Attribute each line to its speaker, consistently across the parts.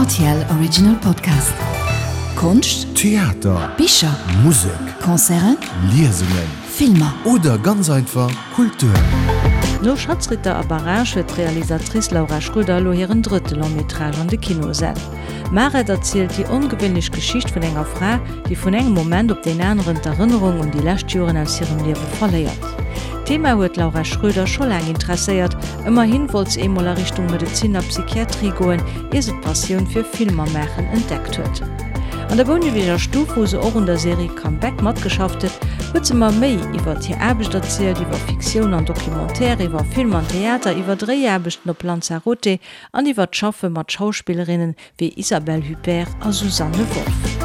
Speaker 1: Rtl Original Podcast. Konscht,
Speaker 2: Theater,
Speaker 1: Bicher,
Speaker 2: Musek,
Speaker 1: Concerten,
Speaker 2: Liesungen,
Speaker 1: Filmer.
Speaker 2: Oder ganz einfach Kultur.
Speaker 3: No Schatzritter a Barrage huet d'Realisatrice Laura Schröder elo hiren drëtte Long-métrage an de Kinosäll. Maret erzielt déi ongewéinlech Geschicht vun enger Fra, déi vun engem Moment op deen aneren d'Erënnerung un déi lescht Joren aus hirem Liewe verléiert. D'Thema huet d'Laura Schröder scho laang interesséiert, ëmmerhin wollt se eemol a Richtung Medezin a Psychiatrie goen, ier se d'Passioun fir Filmer maachen entdeckt huet. An der Bouneweger Stuff, wou se och un der Serie Comeback matgeschafft huet, huet se mer méi iwwert hir Aarbecht erzielt, iwwer Fiktioun an Documentaire, iwwer Film an Theater, iwwer Dréiaarbechten op Lanzarote an iwwer d'Schaffe mat Schauspillerinnen wéi Isabelle Huppert a Susanne Wolff.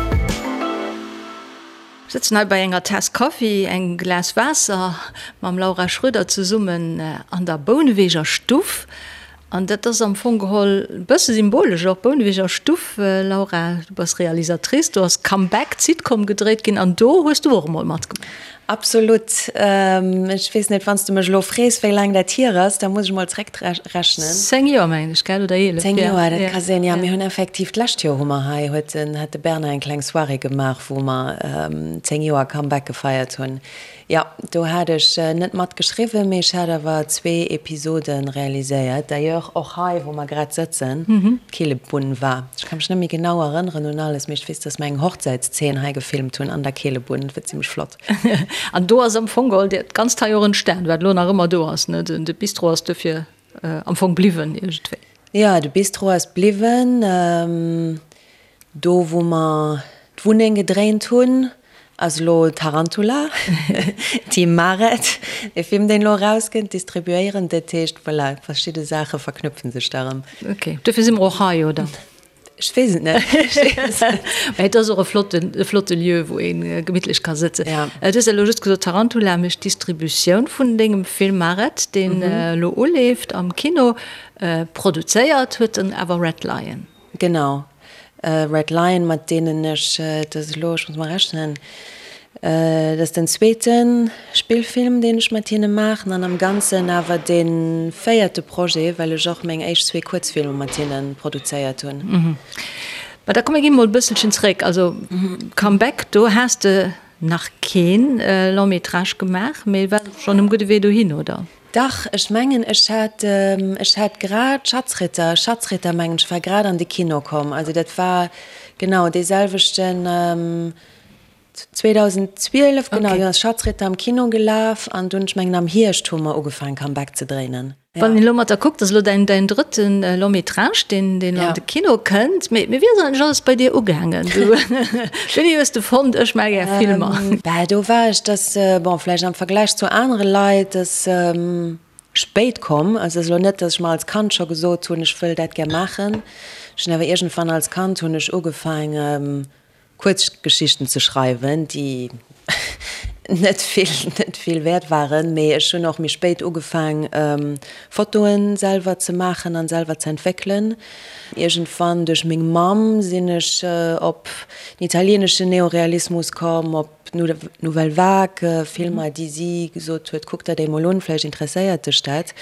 Speaker 3: Sëtzen hei bei enger Taass Kaffi, engem Glas Waasser mam Laura Schröder zesummen an der Bouneweger Stuff. An dat ass am Fong geholl e bësse symbolesch och, Bouneweger Stuff. Laura, du bass Realisatrice, do ass Comeback, d'Sitcom gedréit ginn an do hues du och emol matgemaach.
Speaker 4: Absolut. Ech weess net, wann s de mech elo frees, wéi laang dat hier ass, da muss ech mol zréckrechnen.
Speaker 3: 10 Joer, mengen ech, gell, oder 11?
Speaker 4: 10 Joer, dat ka sinn, jo. Mir hunn effektiv, d'lescht Joer hu mer hei, huet den, hat de Bernard eng kleng Soirée gemaach, wou mer 10 Joer Comeback gefeiert hunn. Jo, do hat ech net mat geschriwwen, mee ech hat awer zwee Episode realiséiert. D'ailleurs och hei, wou mer grad sëtzen, d'Keelebunn war. Ech ka mech net méi genau erënneren un alles, mee ech weess, dass mer eng Hochzäitszeen hei gefilmt hunn an der Keelebunn. Dat war zimmlech flott.
Speaker 3: An do ass am Fong geholl dat Ganzt hei och entstan, wat elo nach ëmmer do ass, ne? De Bistro ass dofir am Fong bliwwen iergendwéi.
Speaker 4: Jo, de Bistro ass bliwwen. Do wou mer d'Wunneng gedréint hunn, ass elo Tarantula, Team Maret, dee Film deen elo erauskënnt, distribuéieren. Dat heescht, voilà, verschidde Saache verknüpfen sech da erëm.
Speaker 3: Ok, dofir si mer och hei, oder?
Speaker 4: Ech weess et net.
Speaker 3: Mä et ass och e flotten, e flotte Lieu, wou ee gemittlech ka sëtzen.
Speaker 4: Ja.
Speaker 3: Du hues elo just gesot, Tarantula mécht d'Distributioun vun dengem Film Maret, deen elo uleeft am Kino. Produzéiert huet en awer Red Lion.
Speaker 4: Genau, Red Lion, mat deenen ech, et ass elo, ech muss mol rechnen, et ass den zweete Spillfilm, deen ech mat hinne maachen an am Ganzen awer dee véierte Projet, well ech och meng éischt zwee Kuerzfilmer mat hinne produzéiert hunn.
Speaker 3: Mä da komm mir gi mol e bësselchen zeréck. Also Comeback, do has de nach keen Long métrage gemaach, mee war schonn um gudde Wee dohin, oder?
Speaker 4: Dach, ech mengen ech hat, ech hat grad Schatzritter, Schatzritter mengen ech war grad an de Kino komm. Also dat war genau dee selwechten 2012, genau, do ass Schatzritter am Kino gelaf an dunn, ech mengen am Hierscht hu mer ugefaangen Comeback ze dréinen.
Speaker 3: Wann een elo mat der kuckt, ass elo däin däin drëtten Long métrage, deen deen an de Kino kënnt. Mee mee wéi ass eigentlech alles bei dir ugaangen? Du, wéini hues de fonnt, ech maache gär Filmer?
Speaker 4: Bah, do war ech, dass, bon, vläicht am Vergläich zu anere Leit, dass spéit komm. Also et ass elo net, dass ech mer als Kand scho gesot hunn, ech wëll dat gär maachen. Ech hunn awer iergendwann als Kand hunn ech ugefaangen, Kuerzgeschichten ze schreiwen, déi net vill, net vill wäert waren, mee ech hunn och méi spéit ugefaang, Fotoen selwer ze maachen an selwer ze entwéckelen. Iergendwann duerch meng Mamm sinn ech op den italieneschen Neorealismus komm, op d'Nouvelle Vague, Filmer, déi si gesot huet, kuck der déi mol un, vläicht interesséiert dech dat.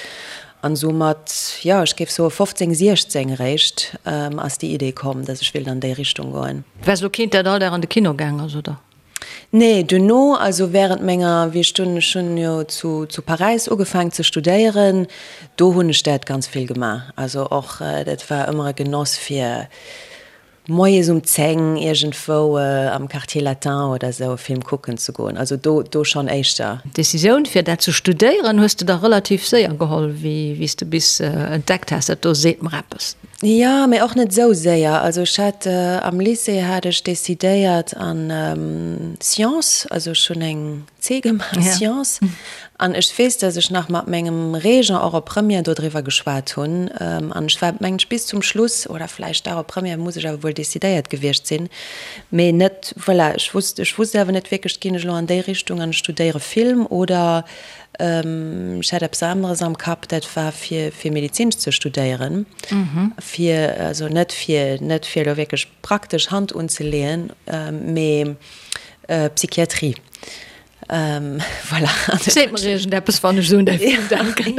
Speaker 4: An esou mat, jo, ech géif soe 15, 16 eréischt ass déi Idee komm, dass ech wéilt an déi Richtung goen.
Speaker 3: Waars elo keent, dat all Dag an de Kino gaang ass, oder?
Speaker 4: Nee, duerno, also während menger, wéi ech dunn, ech hunn jo zu zu Paräis ugefaang ze studéieren, do hunn ech dat ganz vill gemaach. Also och, dat war ëmmer e Genoss fir moies um 10 iergendwou am Quartier Latin oder esou e Film kucken ze goen. Also do, do schonn éischter.
Speaker 3: D'Decisioun fir dat ze studéieren hues de da relativ séier geholl, wéi wéi s de bis entdeckt has, dat do seet mer eppes.
Speaker 4: Jo, mee och net esou séier. Also ech hat am Lycée hat ech decidéiert an Sciences, also ech hunn eng C gemaach, Sciences, an ech weess, datt ech nach mat mengem Régent och op Première dodriwwer geschwat hunn an ech war mengen ech bis zum Schluss, oder vläicht dach op Première muss ech awer wuel decidéiert gewiescht sinn, mee net, voilà, ech wusst, ech wusst awer net wierklech, ginn ech elo an déi Richtung an ech studéiere Film oder Ech hat eppes aneres am Kapp, dat war fir fir Medizin ze studéieren, fir also net fir net fir elo wierklech praktesch Hand unzeleeën, mee Psychiatrie. Voilà.
Speaker 3: Seet mer iergendeppes, wann ech esou un däi Film denken.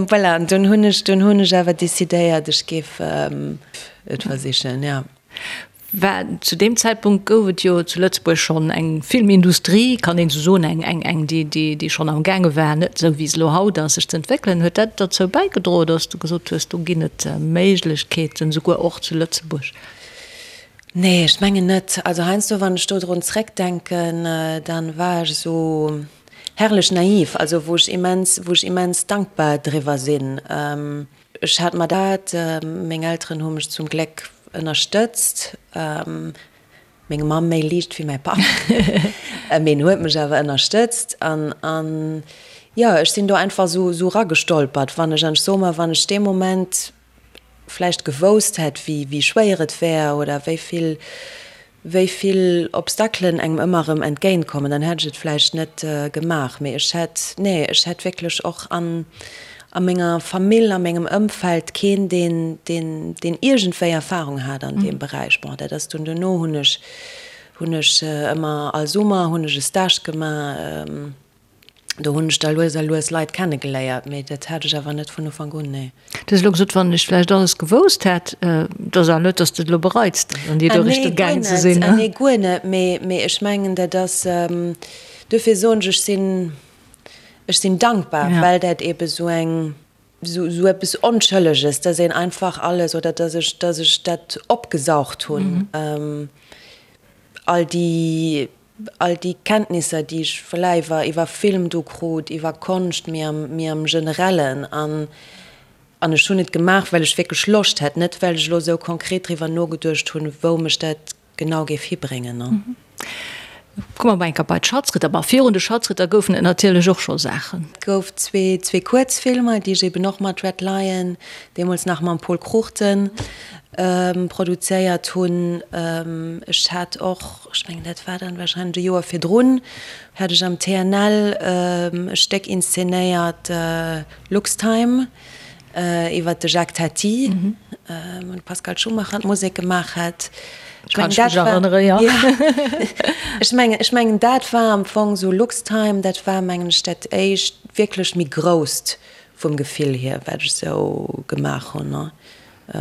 Speaker 4: Voilà, an dunn hunn ech, dunn hunn ech awer decidéiert, ech géif et versichen, jo.
Speaker 3: War, zu deem Zäitpunkt gouf et jo zu Lëtzebuerg schonn eng Filmindustrie, kann een esou soen, eng, eng, eng, déi, déi, déi schonn am gaange war, net esou wéi se elo haut ass, sech ze entwéckelen. Huet dat derzou bäigedroen, datt s de gesot hues, do ginn et Méiglechkeeten, souguer och zu Lëtzebuerg?
Speaker 4: Nee, ech mengen net. Also heiansdo, wann ech do drun zréckdenken, dann war ech esou herrlech naiv, also wou ech immens, wou ech immens dankbar driwwer sinn. Ech hat mer dat, meng Elteren hu mech zum Gléck ënnerstëtzt, meng Mamm méi liicht wéi mäi Papp, mee en huet mech awer ënnerstëtzt an, an jo, ech sinn do einfach esou, esou eragestolpert. Wann ech, an ech soe mer, wann ech dee Moment vläicht gewousst hätt, wéi, wéi schwéier et wär oder wéi vill, wéi vill Obstaclen engem ëmmer erëm entgéint kommen, dann hätt ech et vläicht net gemaach. Mee ech hätt, nee, ech hätt wierklech och an, a menger Famill, a mengem Ëmfeld keen, deen, deen, deen iergendwéi Erfahrung hat an deem Beräich. Bon, dat ass dunn duerno hunn ech, hunn ech ëmmer all Summer hunn ech e Stage gemaach. Do hunn ech da lues a lues Leit kennegeléiert, mee dat hat ech awer net vun Ufank un, nee.
Speaker 3: Du hues elo gesot, wann ech vläicht alles gewousst hätt. Et ass awer net, datt s de et elo bereits, an déi do Richtung gaangen ze sinn, ne?
Speaker 4: Ah nee, guer net. Mee, mee ech mengen, dat ass, duerfir soen ech, ech sinn, ech sinn dankbar, well dat eebe sou eng, sou, sou eppes Onschëlleges, datt een einfach alles, oder datt ech, datt ech dat opgesaugt hunn, all déi All déi Kenntnisser, déi ech voilà iwwer iwwer Film do krut, iwwer Konscht, méi am méi am Generellen. An an ech hunn et gemaach, well ech wierklech Loscht hat, net well ech elo esou konkret driwwer nogeduecht hunn, wou mech dat genau géif hibréngen, ne.
Speaker 3: Komme mer mol eng Kéier bei d'Schatzritter. Bon, virun de Schatzritter goufen et natierlech och scho Saachen.
Speaker 4: Et gouf zwee zwee Kuerzfilmer, déi ech eben och mat Red Lion, deemools nach mam Pol Cruchten, produzéiert hunn. Ech hat och, ech mengen dat war dann wahrscheinlech e Joer virdrun, hat ech am TNL e Stéck inszenéiert, Luxtime, iwwer de Jacques Tati, wou de Pascal Schumacher d'Musek gemaach hat. Ech mengen dat war, jo, ech mengen, ech mengen dat war am Fong esou Luxtime, dat war mengen ech dat éischt wierklech méi grousst vum Gefill hier, wat ech esou gemaach hunn.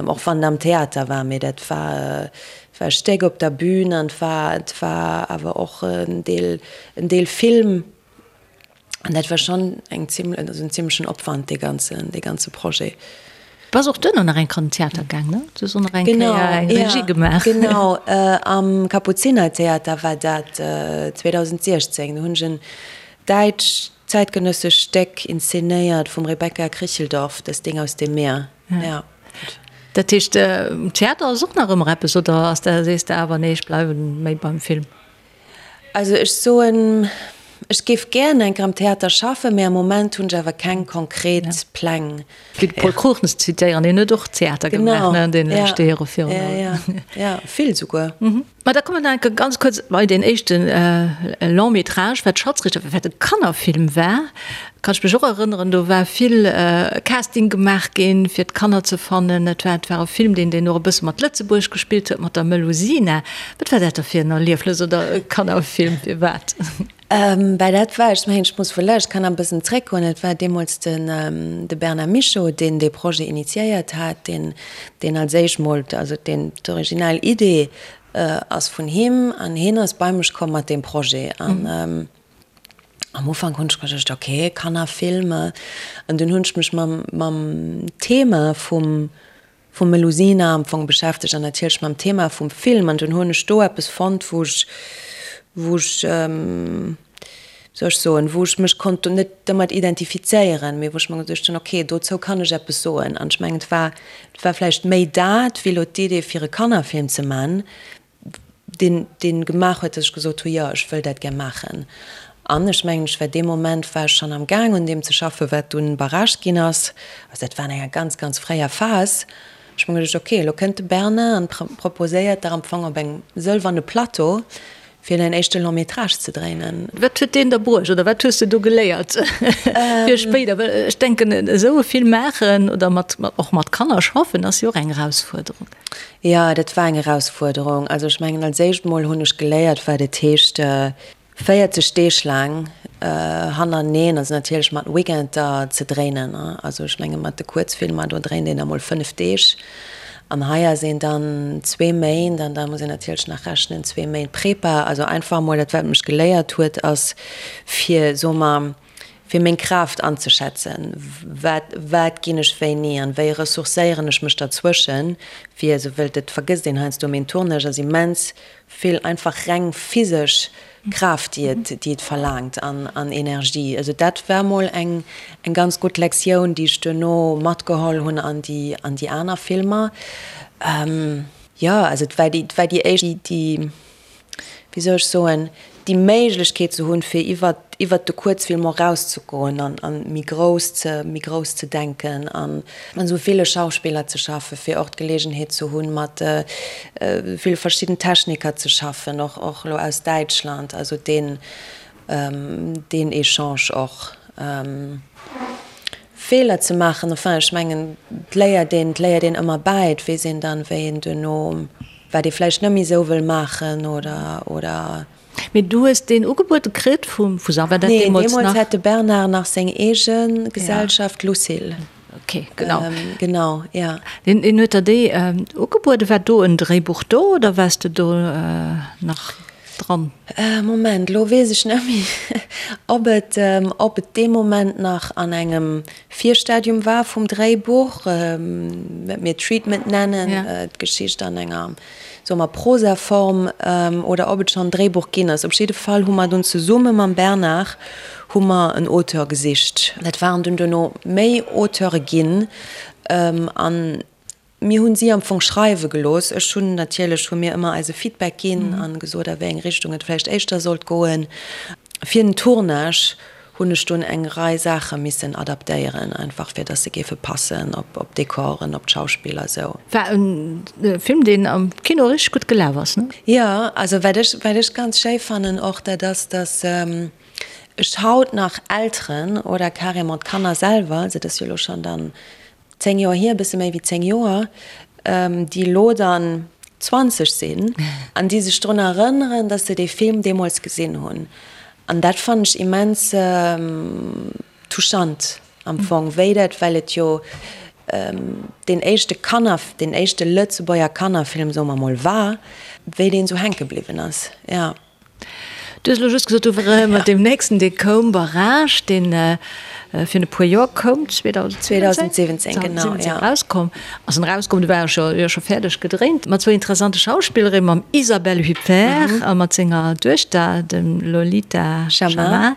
Speaker 4: Och wann et am Theater war, mee dat war war e Stéck op der Bühn an et war et war awer och en Deel en Deel Film an dat war schonn eng zimlech also en zimlechen Opwand dee ganzen dee ganze Projet.
Speaker 3: Bass och duerno nach eng Kéier an den Theater gaang, ne? Du hues och nach eng Kéier eng Regie gemaach.
Speaker 4: Genau, am Kapuzinertheater war dat 2016. Do hunn ech en däitsch zäitgenëssesch Stéck inszenéiert vum Rebecca Kricheldorf, Das Ding aus dem Meer. Ja.
Speaker 3: Dat heescht, Theater ass och nach ëmmer eppes, oder ass dat, sees de awer, nee, ech bleiwe méi beim Film?
Speaker 4: Also ech soen, ech géif gären eng Kéier am Theater schaffen, mee am Moment hunn ech awer keng konkret Pläng.
Speaker 3: Fir de Pol Cruchten ze zitéieren, deen huet och Theater gemaach, ne, an deene leschte Jore virun allem.
Speaker 4: Genau, ja, ja, vill souguer.
Speaker 3: Ma da komme mer nach eng Kéier ganz kuerz bei deen éischte Long métrage, wat Schatzrichter war, wat e Kannerfilm war. Kann ech mech och erënneren, do war vill Casting gemaach ginn, fir d'Kanner ze fannen. Et war, et war e Film, deen, deen och e bësse mat Lëtzebuerg gespillt huet, mat der Melusina. Wat war dat da fir en Erliefnes oder e Kannerfilm, firwat?
Speaker 4: Bah, dat war, ech mengen, ech muss vläicht, kann nach e bëssen zréckgoen, et war deemools den, de Bernard Michaux, deen dee Projet initiéiert hat, deen, deen als éischt mol, also deen, d'original Idee ass vun him an hien ass bei mech komm mat deem Projet. An am Ufank hunn ech geduecht, okay, Kannerfilm, an dunn hunn ech mech mam, mam Thema vum, vum Melusina am Fong beschäftegt an natierlech mam Thema vum Film an dunn hunn ech do eppes fonnt, wou ech, wou ech, wéi soll ech soen, wou ech mech konnt net domat identifizéieren, mee wou ech mer geduecht hunn, okay, dozou kann ech eppes soen. An ech mengen, et war, et war vläicht méi dat wéi elo d'Idee fir e Kannerfilm ze man, deen, deen gemaach huet, dass ech gesot hu, jo, ech wëll dat gär maachen. An ech mengen, ech war dee Moment war ech schonn am Gaang un deem ze schaffen, wat dunn Barrage ginn ass. Also dat war an enger ganz, ganz fréier Phas. Ech hu mer geduecht, okay, elo kënnt de Bernard an proposéiert der am Fong op engem sëlwerne Plateau, fir däin éischte Long métrage ze dréinen.
Speaker 3: Wat huet deen der bruecht oder wat hues de do geléiert fir spéider? Well ech denken, esou e Film maachen oder mat, och mat Kanner schaffen, ass jo och eng Erausfuerderung.
Speaker 4: Jo, dat war eng Erausfuerderung. Also ech mengen, als éischt mol hunn ech geléiert, wat et heescht. 40 Deeg laang hannerteneen, also natierlech mat Weekender ze dréinen. Also ech menge mat de Kuerzfilmer, do dréint een da mol 5 Deeg an hei ass een dann zwee Méint an da muss een natierlech nach rechnen, zwee Méint Prepa. Also einfach mol dat wat mech geléiert huet ass fir, soe mer, fir meng Kraaft anzeschätzen, wat wat ginn ech wéini an wéi ressourcéieren ech mech derzwëschen, fir esou wëllt et vergësst een heiansdo, mee en Tournage ass immens vill einfach reng physesch Kraaft déi et déi et verlaangt an an Energie. Also dat war mol eng eng ganz gutt Lektioun déi ech duerno matgeholl hunn an déi an déi aner Filmer. Jo also et war déi et war déi éischt déi wéi soll ech soen, déi Méiglechkeet ze hunn, fir iwwer, iwwert de Kuerzfilm och erauszegoen an, an méi grouss ze, méi grouss ze denken an mat esou ville Schauspiller ze schaffen, fir och d'Geleegenheet ze hunn, mat ville verschidden Techniker ze schaffen, och, och elo aus Däitschland, also deen, deen Echange och. Feeler ze maachen, enfin, ech mengen, et léiert een, et léiert een ëmmer bäi, et weess een dann, wéi een duerno, wat ee vläicht net méi esou wëll maachen oder, oder.
Speaker 3: Mee du hues deen ugebuede kritt vum, vu Sa, war dat
Speaker 4: Nee,
Speaker 3: deemools
Speaker 4: deemools
Speaker 3: nach?
Speaker 4: hat de Bernard nach seng eege Gesellschaft, Lucille.
Speaker 3: Ok, genau.
Speaker 4: Genau, ja.
Speaker 3: Deen, deen huet der déi ugebueden. War do en Dréibuch do oder waars de do nach dran?
Speaker 4: Moment, elo weess ech net méi, ob et, ob et dee Moment nach an engem Virstadium war vum Dréibuch, wat mir Treatment nennen, d'Geschicht an enger, soe mer, Prosaform, oder ob et schonn en Dréibuch ginn ass. Op jidde Fall hu mer dunn zesumme mam Bernard hu mer en Auteur gesicht. Dat waren dunn duerno méi Auteure ginn an Mir hunn si am Fong schreiwe gelooss. Ech hunn natierlech, hu mir ëmmer eise Feedback ginn a gesot, a wéi eng Richtung et vläicht éischter sollt goen. Fir den Tournage hunn ech dunn eng Rei Saache missen adaptéieren, einfach fir datt se géife passen op op d'Dekoren, op d'Schauspiller, esou.
Speaker 3: War e Film, deen am Kino richteg gutt gelaf ass, ne?
Speaker 4: Jo, also wat ech, wat ech ganz schéi fannen och, dat ass, datt ech haut nach Elteren oder carrément d'Kanner selwer, also et ass jo elo schonn dann 10 Joer hier, e bësse méi wéi 10 Joer, déi elo dann 20 sinn an déi sech drun erënneren, dass se dee Film deemools gesinn hunn. An dat fannen ech immens touchant am Fong, wéi dat, well et jo deen éischte Kanner, deen éischte Lëtzebuerger Kannerfilm, soe mer mol, war, wéi deen esou hänke bliwwen ass, jo.
Speaker 3: Du hues elo just gesot, du wär mat deem nächsten, dee koum, Barrage, deen virun e puer Joer koum,
Speaker 4: 2017, genau, ja.
Speaker 3: Erauskomm ass. En erauskomm, du war scho, jo, scho fäerdeg gedréint, mat zwou interessante Schauspillerinnen, mam Isabelle Huppert a mat senger Duechter, dem Lolita Chammah.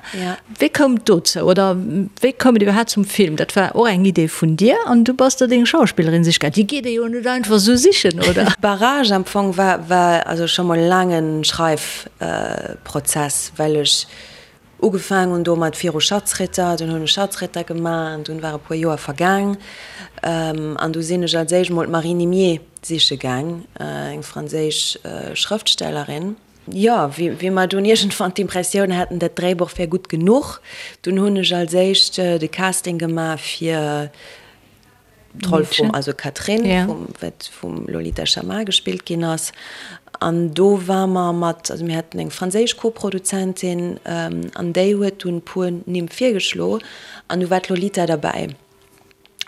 Speaker 3: Wéi koum et dozou oder wéi koum et iwwerhaapt zum Film? Dat war och eng Idee vun dir an du bass der deng Schauspillerin siche gaangen. Déi geet ee jo net einfach esou sichen, oder?
Speaker 4: Barrage am Fong war war also scho mol e laange Schreifprozess, well ech ugefaang hunn domat viru Schatzritter, dunn hunn ech Schatzritter gemaach an dunn war e puer Joer vergaang an du sinn ech als éischt mol d'Marie Nimier siche gaang, eng franséisch Schrëftstellerin. Jo, wéi mer dunn iergendwann d'Impressioun haten, dat Dréibuch wär gutt genuch, dunn hunn ech als éischt de Casting gemaach fir d'Roll vum, also Catherine, vum, wat vum Lolita Chammah gespillt ginn ass. An do war mer mat, also mir haten eng franséisch Koproduzentin an déi huet dunn e puer Nimm virgeschlo an du war d'Lolita derbäi.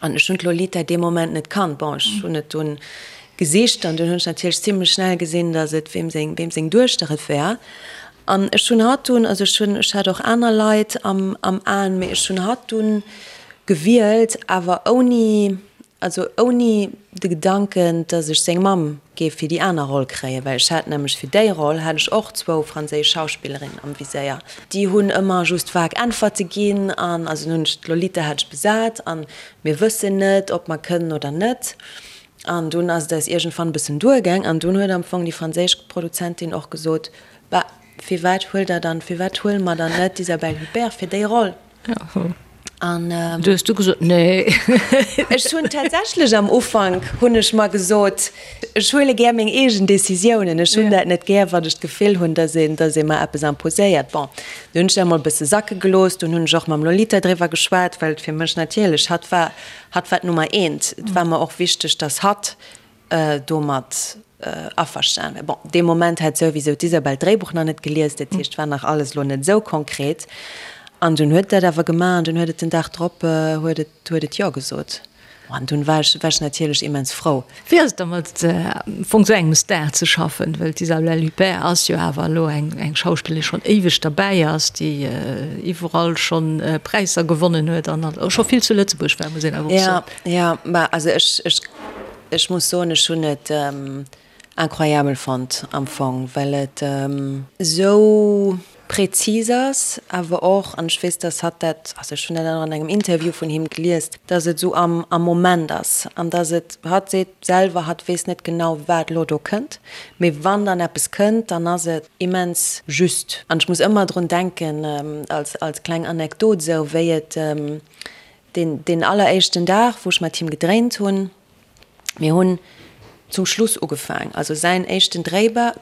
Speaker 4: An ech hunn d'Lolita dee Moment net kannt. Bon, ech hunn et dunn gesicht an dunn hunn ech natierlech zimlech schnell gesinn, datt et weem seng, weem seng Duechter et wär. An ech hunn hatt dunn, also ech hunn, ech hat och aner Leit am, am Aen, mee ech hunn hatt dunn gewielt, awer ouni, also ouni de Gedanken, datt ech seng Mamm géif fir déi aner Roll kréien, well ech hat nämlech fir déi Roll hat ech och zwou franséisch Schauspillerinnen am Viséier. Déi hunn ëmmer just vag Äntwerte ginn an also hunn ech d'Lolita hat ech besat an mir wëssen net, ob mer kënnen oder net. An dunn ass et eis iergendwann e bëssen duergaang an dunn huet am Fong déi franséisch Produzentin och gesot, Bah, firwat huelt der dann, firwat huele mer dann net d'Isabelle Huppert fir déi Roll?
Speaker 3: An du hues du gesot, nee.
Speaker 4: Ech hunn tatsächlech am Ufank hunn ech mer gesot, ech huele gär meng eegen Decisiounen. Ech hunn dat net gär, wann ech d'Gefill hunn, datt een, datt ee mer eppes imposéiert. Bon, du hunn ech dat emol e bësse sacke gelooss. Dunn hunn ech och mam Lolita driwwer geschwat, well et fir mech natierlech, hatt war, hatt war d'Nummer eent. Et war mer och wichteg, datt hatt. domat averstan war. Bon, dee Moment hat souwisou d'Isabel d'Dréibuch nach net gelies, dat heescht, war nach alles elo net esou konkret. An dunn huet dat awer gemaach an dunn huet et den Dag drop huet et huet et Jo gesot. An dunn war ech war ech natierlech immens frou.
Speaker 3: Wéi ass et da mat am Fong esou engem Star ze schaffen? Well d'Isabelle Huppert ass jo awer elo eng eng Schauspillerin, déi schonn éiweg derbäi ass, déi iwwerall schonn Präisser gewonnen huet an och scho vill zu Lëtzebuerg war, muss een awer och soen.
Speaker 4: Jo, jo, ma also ech ech Ech muss soen, ech hunn et incroyabel fonnt am Fong, well et esou präzis ass, awer och, an ech weess, dass hatt dat, also ech hunn dat och an engem Interview vun him gelies, dass et esou am am Moment ass an dass et, hatt seet selwer, hatt weess net genau, wat elo do kënnt, mee wann dann eppes kënnt, dann ass et immens just. An ech muss ëmmer drun denken, als als kleng Anekdot esou, wéi et Deen, deen alleréischten Dag, wou ech mat him gedréint hunn, mir hunn zum Schluss ugefaang, also säin éischten Dréiba,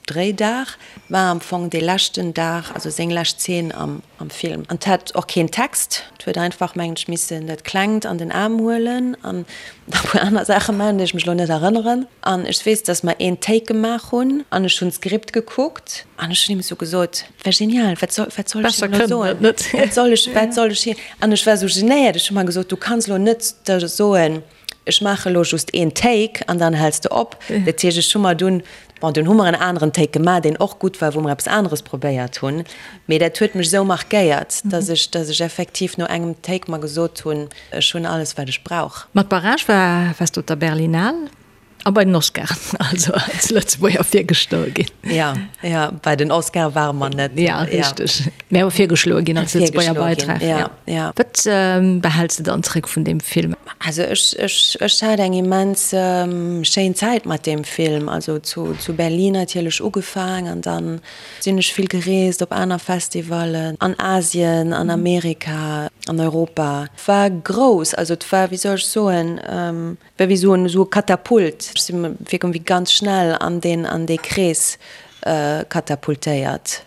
Speaker 4: Dréidag war am Fong dee leschten Dag, also seng lescht Zeen am, am Film. An 't hat och keen Text, 't huet einfach, mengen ech, missen dat Klengt an den Aarm huelen an nach e puer aner Saache maachen, déi ech mech elo net erënneren. An ech weess, dass mer een Take gemaach hunn an ech hunn d'Skript gekuckt an ech hunn him esou gesot, War genial, wat soll, wat soll ech him elo soen? Wat soll ech, wat soll ech him? An ech war esou genéiert, ech hu mer gesot, du kanns elo net da soen, ech maache elo just een Take an dann häls de op. Dat heescht, ech hu mer dunn, bon, dunn hu mer en aneren Take gemaach, deen och gutt war, wou mer eppes aneres probéiert hunn. Mee dat huet mech esou markéiert, dass ech, dass ech effektiv no engem Take mer gesot hunn, ech hunn alles, wat ech brauch.
Speaker 3: Mat Barrage war, waars de op der Berlinale. A bei den Oscaren, also als Lëtzebuerger virgeschloe ginn.
Speaker 4: Ja, ja, bei den Oscare ware mer net.
Speaker 3: Ja, richteg. Mä awer virgeschloe ginn als Lëtzebuerger Beitrag.
Speaker 4: Ja, ja.
Speaker 3: Wat behäls de dann zréck vun deem Film?
Speaker 4: Also ech, ech, ech hat eng immens schéin Zäit mat deem Film. Also zu, zu Berlin natierlech ugefaang an dann sinn ech vill gereest op aner Festivallen, an Asien, an Amerika, an Europa. War grouss, also et war, wéi soll ech soen, War wéi esou en esou e Katapult. Ech si wierklech wéi ganz schnell an deen an dee Krees katapultéiert,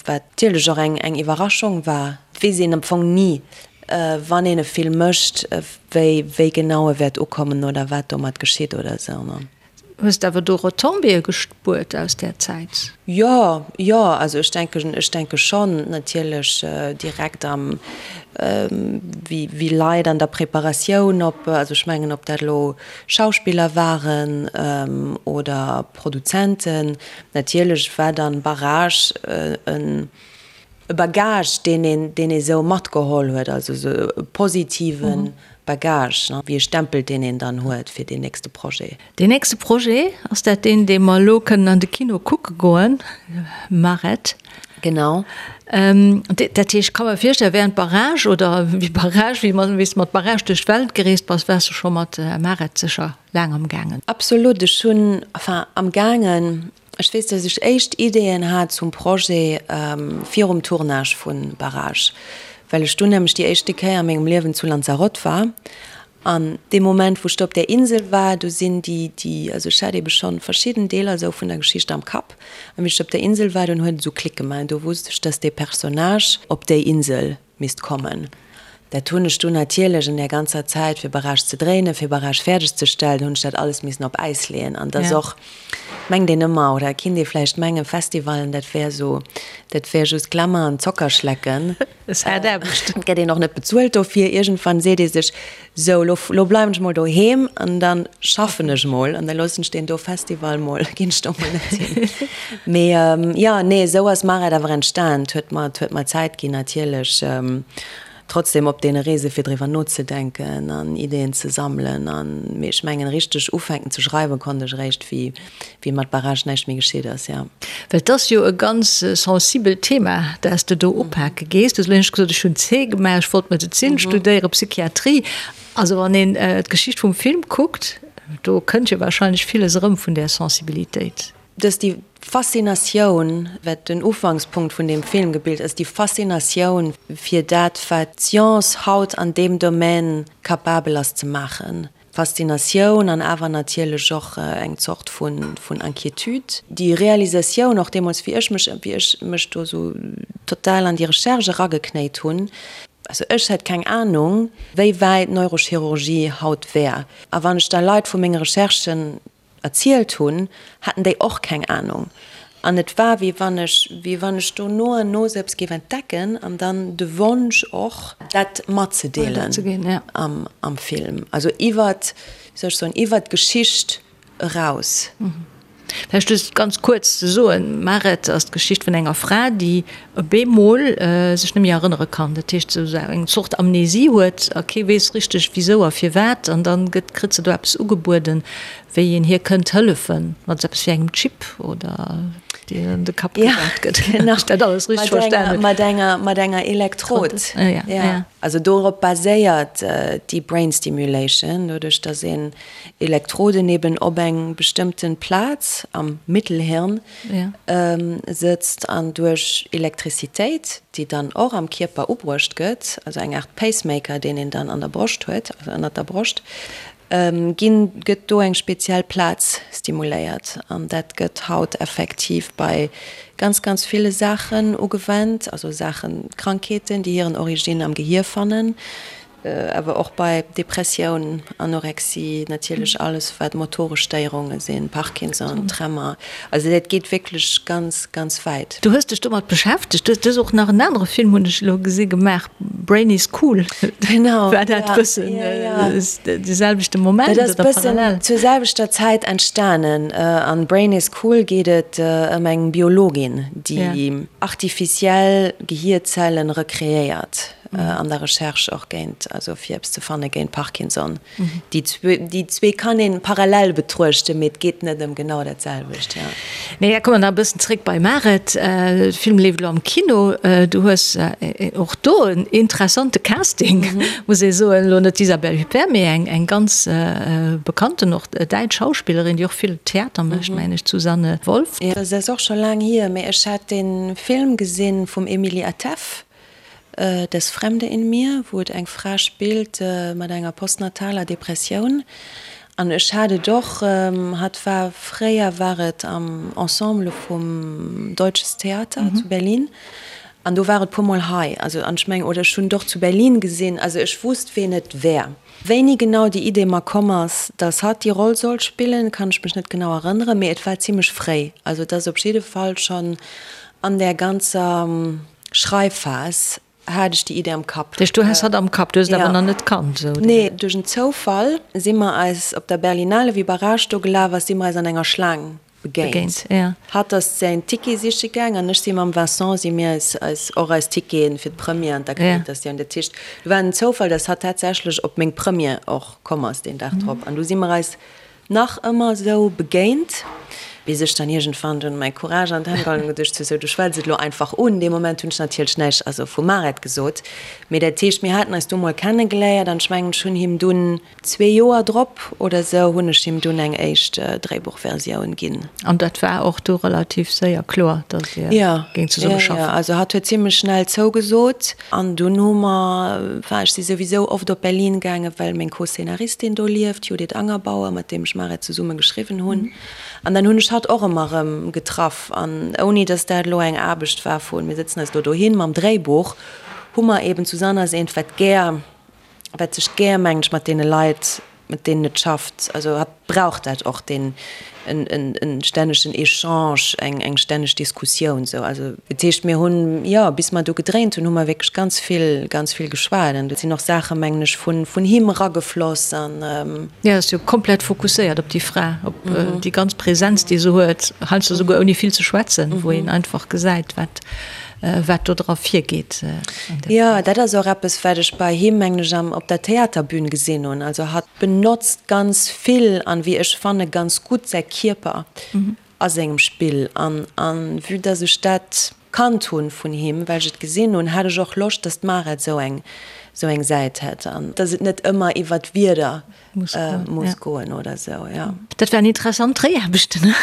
Speaker 4: wat natierlech och eng eng Iwwerraschung war. Et weess een am Fong ni, wann een e Film mécht, wéi wéi genau e wäert ukommen oder wat domat geschitt oder esou.
Speaker 3: Hues de awer do Retombéeë gespuert aus där Zäit?
Speaker 4: Jo, jo, also ech denken, ech denke schonn natierlech direkt am, wéi, wéi Leit an der Preparatioun op, also ech mengen, ob dat elo Schauspiller waren oder Produzenten, natierlech war dann Barrage en, E Bagage, deen een, deen ee sou matgeholl huet, also sou e positive Bagage, ne, wéi e Stempel, deen een dann huet fir deen nächste Projet.
Speaker 3: Deen nächste Projet, ass dat deen, dee mer elo kënnen an de Kino kucke goen, Maret?
Speaker 4: Genau.
Speaker 3: Dat heescht, ech ka mer virstellen, während Barrage oder wéi Barrage, wéi mer, wéi s de mat Barrage duerch d'Welt gereest bass, waars de scho mat Maret sécher laang am gaangen.
Speaker 4: Absolut, ech hunn, enfin am gaangen, Ech weess, dass ech éischt Ideeën hat zum Projet virum Tournage vu Barrage, well ech dunn nämlech déi éischte Kéier a mengem Liewen zu Lanzarote war. An dee Moment, wou ech do op där Insel war, do sinn déi, déi, also ech hat eebe schonn verschidden Deeler esou vun der Geschicht am Kapp. An wéi ech op der Insel war, dunn huet et esou Klick gemaach an do wusst ech, dass dee Personnage op déi Insel misst kommen. Dat hunn ech dunn natierlech an där ganzer Zäit, fir Barrage ze dréinen, fir Barrage fäerdeg ze stellen, hunn ech dat alles missen op Äis leeën. An dat ass och, mengt een ëmmer, oder kinnt ee vläicht mengen, Festivalen, dat wär esou, dat wär just Glamour an Zockerschlecken.
Speaker 3: Ass haart Aarbecht.
Speaker 4: Et gëtt een och net bezuelt dofir. Iergendwann seet ee sech, Sou, lo, lo bleiwen ech mol doheem an da schaffen ech mol an da loossen ech deen do Festival mol, ginn ech do mol net hin. Mee jo, nee, esou ass Maret awer entstan. Et huet mer, et huet mer Zäit ginn natierlech, trotzdem op deene Reese fir driwwer nozedenken an Ideeën ze sammelen an, mee ech mengen richteg ufänken ze schreiwen konnt ech eréischt wéi, wéi mat Barrage näischt méi geschitt ass, jo.
Speaker 3: Well et ass jo e ganz sensibelt Thema, dat s de do upake gees. Du hues elo éischt gesot, ech hunn C gemaach, ech wollt Medezin studéieren, Psychiatrie. Also wann een d'Geschicht vum Film kuckt, do kënnt jo wahrscheinlech villes erëm vun där Sensibilitéit.
Speaker 4: Dass déi Faszinatioun, wat den Ufankspunkt vun deem Film gebilt ass, déi Faszinatioun fir dat, wat d'Science haut an deem Domaine capabel ass ze maachen, Faszinatioun an awer natierlech och eng Zort vun Inquiétude. Déi Realisatioun och deemools, wéi ech mech, wéi ech mech do esou total an déi Recherche erageknéit hunn. Also ech hätt keng Anung, wéi wäit d'Neurochirurgie haut wär. A wann ech da Leit vu menge Recherchen erzielt hunn, haten déi och keng Anung. An et war, wéi wann ech, wéi wann ech do no an no sou eppes géif entdecken an dann de Wonsch och, dat matzedeelen am, am Film, also iwwert, wéi soll ech soen, iwwert d'Geschicht eraus.
Speaker 3: Vläicht just ganz kuerz ze soen, Maret ass d'Geschicht vun enger Fra, déi op eemol sech net méi erënnere kann. Dat heescht, esou eng Zort Amnesie huet a kee weess richteg wisou a firwat. An dann gëtt, kritt se do eppes ugebueden, wéi een hir kënnt hëllefen, mat esou eppes wéi engem Chip oder deen an de Kapp gesat gëtt.
Speaker 4: Genau,
Speaker 3: Wann ech dat alles richteg verstanen hunn.
Speaker 4: Mat enger, mat enger Elektrod.
Speaker 3: Ja, ja.
Speaker 4: Also dorop baséiert déi Brain Stimulation, doduerch datt een Elektroden eben op eng bestëmmten Plaz am Mittelhirn sëtzt an duerch Elektrizitéit, déi dann och am Kierper ubruecht gëtt, also eng Aart Pacemaker, deen een dann an der Broscht huet, also ënnert der Broscht, ginn, gëtt do eng speziell Plaz stimuléiert. An dat gëtt haut effektiv bei ganz, ganz ville Saachen ugewennt, also Saachen, Krankheeten, déi hiren Origine am Gehier fannen. Awer och bei Depressioun, Anorexie, natierlech alles wat motoresch Stéierunge sinn, Parkinson, Tremor. Also dat geet wierklech ganz, ganz wäit.
Speaker 3: Du hues dech domat beschäftegt. Du hues och nach en anere Film, hunn ech elo gesi, gemaach, Brain is cool.
Speaker 4: Genau.
Speaker 3: War dat e bëssen de selwechte Moment
Speaker 4: oder parallel? Dat ass e bëssen zur selwechter Zäit entstanen. An Brain is cool geet et ëm eng Biologin, déi artificiell Gehierzellen rekreéiert. An der Recherche och géint, also fir eppes ze fanne géint Parkinson. Déi déi zwee kann een parallel betruechten, mee et geet net ëm genau dat selwecht, jo.
Speaker 3: Nee, da komme mer nach e bëssen zréck bei Maret. De Film leeft elo am Kino. Du hues och do en interessante Casting, muss ee soen. Elo net d'Isabelle Huppert, mee eng eng ganz bekannten, och däitsch Schauspillerin, déi och vill Theater mécht, mengen ech, d'Susanne Wolff.
Speaker 4: Jo, dat ass och scho laang hier, mee ech hat dee Film gesinn vum Emily Atef. Das Fremde in mir, wou et eng Fra spillt mat enger postnataler Depressioun. An ech hat et och, hatt war, fréier war et am Ensemble vum Deutsches Theater zu Berlin an do war et puer mol hei. Also an ech mengen, oder ech hunn et och zu Berlin gesinn, also ech wusst ween et wär. Wéini genau déi Idee mer komm ass, dass hatt déi Roll sollt spillen, kann ech mech net genau erënneren, mee et war zimlech fréi. Also et ass op jidde Fall schonn an där ganzer Schreifphas hat ech déi Idee am Kapp.
Speaker 3: Dat heescht, du has hatt am Kapp, du hues et awer nach net kannt, esou?
Speaker 4: Nee, duerch en Zoufall si mer eis op der Berlinale, wéi Barrage do gelaf ass, si mer eis an enger Schlaang begéint. Hatt ass säin Ticket siche gaang an ech si mam Vincent, si mir eis, eis och eis Ticketen fir d'Première an d'Akkreditatioun. Dat heescht, do war en Zoufall, dass hatt tatsächlech op meng Première och komm ass deen Dag drop an du si mer eis Nach ëmmer esou begéint, bis ech dann iergendwann dunn mäi Courage an d'Hänn geholl hunn an geduecht hu, sou, du schwätz et elo einfach un. Dee Moment hunn ech natierlech näischt, also vu Maret gesot, mee dat heescht, mir haten eis du mol kennegeléiert an ech mengen, ech hunn him dunn zwee Joer drop oder esou hunn ech him dunn eng éischt Dréibuchversioun ginn.
Speaker 3: An dat war och du relativ séier kloer, datt Dir géingt zesumme schaffen?
Speaker 4: Jo, jo, also hatt huet zimmlech schnell zougesot. An dunn hu mer, enfin ech si souwisou oft op Berlin gaangen, well meng Co-Scénaristin do lieft, d'Judith Angerbauer, mat deem ech Maret zesumme geschriwwen hunn. An dann hunn ech hatt och ëmmer erëm getraff. An ouni datt dat elo eng Aarbecht war vun, mir sëtzen eis elo dohin mam Dréibuch, hu mer eben, d'Susanne ass eent, wat gär, wat sech gär, mengen ech, mat deene Leit, mat deenen et schafft, also hatt brauch dat och, deen en stännegen Echange, eng eng stänneg Diskussioun sou. Also dat heescht, mir hunn, jo, bis mer do gedréint hunn, hu mer wierklech ganz vill, ganz vill geschwat an do sinn och Saache mengen ech vun vun him eragefloss an.
Speaker 3: Jo, ass jo komplett fokusséiert op déi Fra, op déi ganz Präsenz, déi se huet, heiansdo souguer ouni vill ze schwätzen, wou een einfach gesäit, wat wat do dra virgeet.
Speaker 4: Jo, dat ass och eppes, wat ech bei him, mengen ech, am, op der Theaterbün gesinn hunn. Also hatt benotzt ganz vill an, wéi ech fanne, ganz gutt säi Kierper a sengem Spill. An, an vue dass ech dat kannt hunn vun him, well ech et gesinn hunn, hat ech och Loscht, dass d'Mara esou eng, esou eng Säit hätt an dass et net ëmmer iwwert Wierder muss goen oder esou, jo.
Speaker 3: Dat waren interessant Dréiaarbechten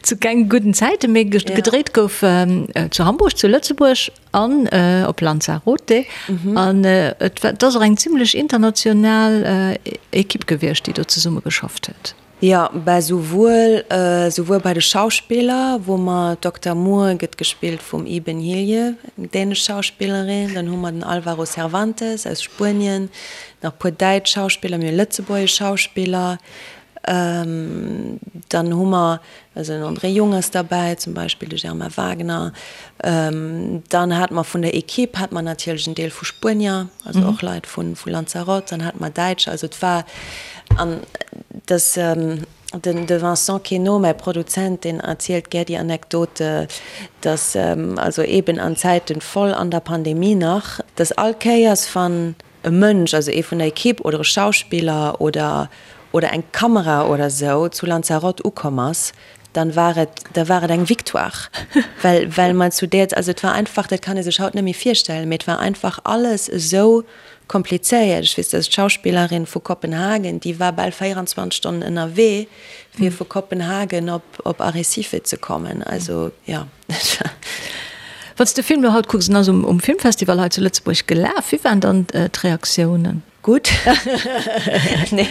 Speaker 3: zu kenge gudden Zäiten, mee gedréit gouf zu Hamburg, zu Lëtzebuerg an op Lanzarote. An et ass och eng zimlech international Ekipp gewiescht, déi do zesumme geschafft huet.
Speaker 4: Jo. Jo, bah souwuel, souwuel bei de Schauspiller, wou mer d'Dokter Moore gëtt gespillt vum Iben Hjejle, eng dänesch Schauspillerin, dann hu mer den Alvaro Cervantes aus Spuenien, nach e puer däitsch Schauspiller, mir hu lëtzebuergesch Schauspiller, dann hu mer, also den André Jung ass derbäi zum Beispill, de Germain Wagner, dann hate mer vun der Equipe hate mer natierlech en Deel vu Spuenier, also och Leit vu Lanzarote, dann hate mer Däitscher, also et war An dass den de Vincent Queneau, mäi Produzent, deen erzielt gär déi Anekdote, dass also eeben an Zäiten voll an der Pandemie nach, dass all Kéiers wann e Mënsch, also ee vun der Equipe oder e Schauspiller oder oder eng Kamera oder esou zu Lanzarote ukomm ass, dann war et, da war et eng Victoire, well well mer zu där, also et war einfach, dat kann ee sech haut net méi virstellen, mee et war einfach alles esou Komplizéiert. Ech weess, dass d'Schauspillerin vu Kopenhagen, déi war bal 24 Stonnen ënnerwee, fir vu Kopenhagen op, op Arrecife ze kommen. Also, jo.
Speaker 3: Wann s de Film elo haut kucks, en ass um, um Filmfestival hei zu Lëtzebuerg gelaf, wéi waren dann d'Reaktiounen?
Speaker 4: Gutt. Nee,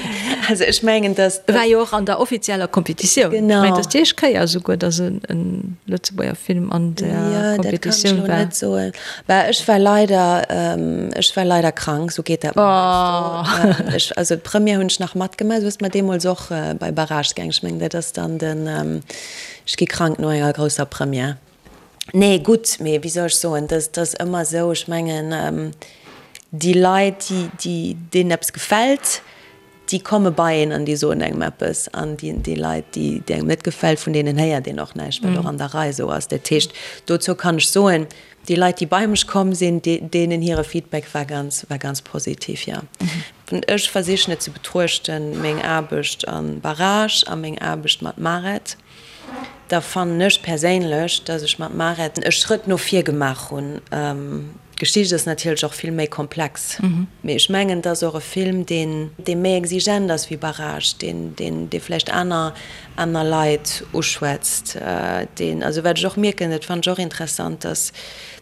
Speaker 4: also ech mengen, dass.
Speaker 3: E war jo och an der offizieller Kompetitioun.
Speaker 4: Genau.
Speaker 3: Ech mengen, et ass déi éischt Kéier esouguer, dass en Lëtzebuerger Film an der Kompetitioun war.
Speaker 4: Jo, dat kann ech elo net soen. Bah, ech war leider, ech war leider krank, sou geet dat mer heiansdo. Ech, also d'Première hunn ech nach matgemaach, sou ass mer deemools och bei Barrage gaang. Ech mengen, dat ass dann den, ech gi krank no enger grousser Première. Nee, gutt, mee wéi soll ech soen, dat ass ëmmer esou, ech mengen, déi Leit, déi, déi, deenen eppes gefält, déi komme bei een an déi soen engem eppes an déi, déi Leit, déi, déi engem net gefält, vun deenen héiert een och näischt, wat och an der Rei esou ass. Dat heescht, dozou kann ech soen, déi Leit, déi bei mech komm sinn, déi, deenen hire Feedback war ganz, war ganz positiv, jo. Ech versichen et ze betruechten, meng Aarbecht a Barrage a meng Aarbecht mat Maret, da fannen ech perséinlech, dass ech mat Maret e Schrëtt no vir gemaach hunn. D'Geschicht ass natierlech och vill méi komplex, mee ech mengen, et ass och e Film, deen, dee méi exigent ass wéi Barrage, deen, deen, dee vläicht aner, aner Leit uschwätzt, deen, also wat ech och mierken, dat fannen ech och interessant, dass,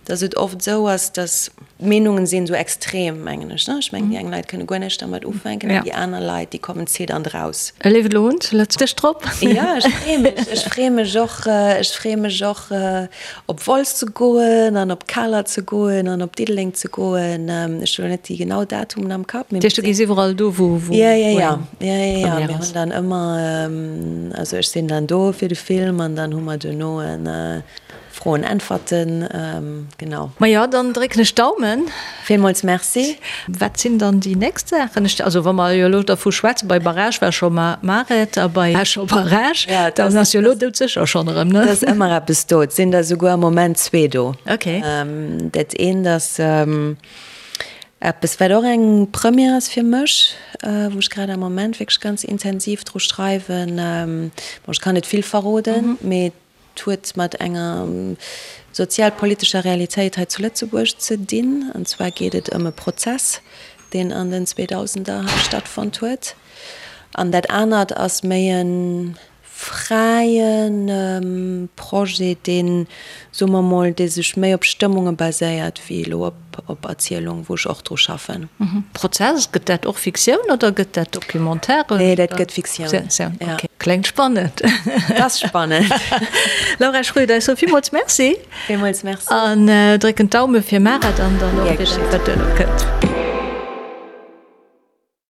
Speaker 4: dass et oft esou ass, dass d'Meenungen sinn esou extrem, mengen ech, ne? Ech mengen, déi eng Leit kënne guer näischt dermat ufänken an déi aner Leit, déi kommen zitternd raus.
Speaker 3: E leeft elo un zu Lëtzebuerg drop.
Speaker 4: Jo, ech freeë mech, ech freeë mech och, ech freeë mech och, Op Wolz ze goen an op Kaler ze goen an op Diddeleng ze goen. Ech hunn elo net déi genau Datumen am Kapp.
Speaker 3: Dat heescht, du gees iwwerall do, wou wou
Speaker 4: Ja, ja, ja. Ja, ja, ja. Mir hunn dann ëmmer, also ech sinn dann do fir de Film an dann hu mer duerno e Froen-Äntwerten, genau.
Speaker 3: Majo, dann drécken ech d'Daumen.
Speaker 4: Villmools Merci.
Speaker 3: Wat sinn dann déi nächst Saachen? Ech, also wa mer jo elo dervu schwätzen, bei Barrage war scho Maret a bei war scho Barrage, dann ass jo elo doudsécher schonn erëm, ne?
Speaker 4: Et ass ëmmer eppes do. Et sinn der souguer am Moment zwee do.
Speaker 3: Okay.
Speaker 4: Dat eent ass eppes, wat och eng Première ass fir mech, wou ech grad am Moment wierklech ganz intensiv dru schreiwen. Bon, ech kann net vill verroden, mee Et huet mat enger sozialpolitescher Realitéit hei zu Lëtzebuerg ze dinn. An zwar geet et ëm e Prozess, deen an den Zweedausender hei stattfonnt huet. An dat anert ass méi e fräie Projet, deen, soe mer mol, dee sech méi op Stëmmunge baséiert wéi elo op op Erzielung, wou ech och dru schaffen.
Speaker 3: Prozess, gëtt dat och Fiktioun oder gëtt dat Documentaire?
Speaker 4: Nee, dat gëtt Fiktioun.
Speaker 3: Fiktioun, ok. Kléngt spannend.
Speaker 4: Et ass spannend.
Speaker 3: Laura Schröder, ech soe villmools Merci.
Speaker 4: Villmools Merci.
Speaker 3: An drécken d'Daume fir Maret an dann och fir dat, wat duerno kënnt.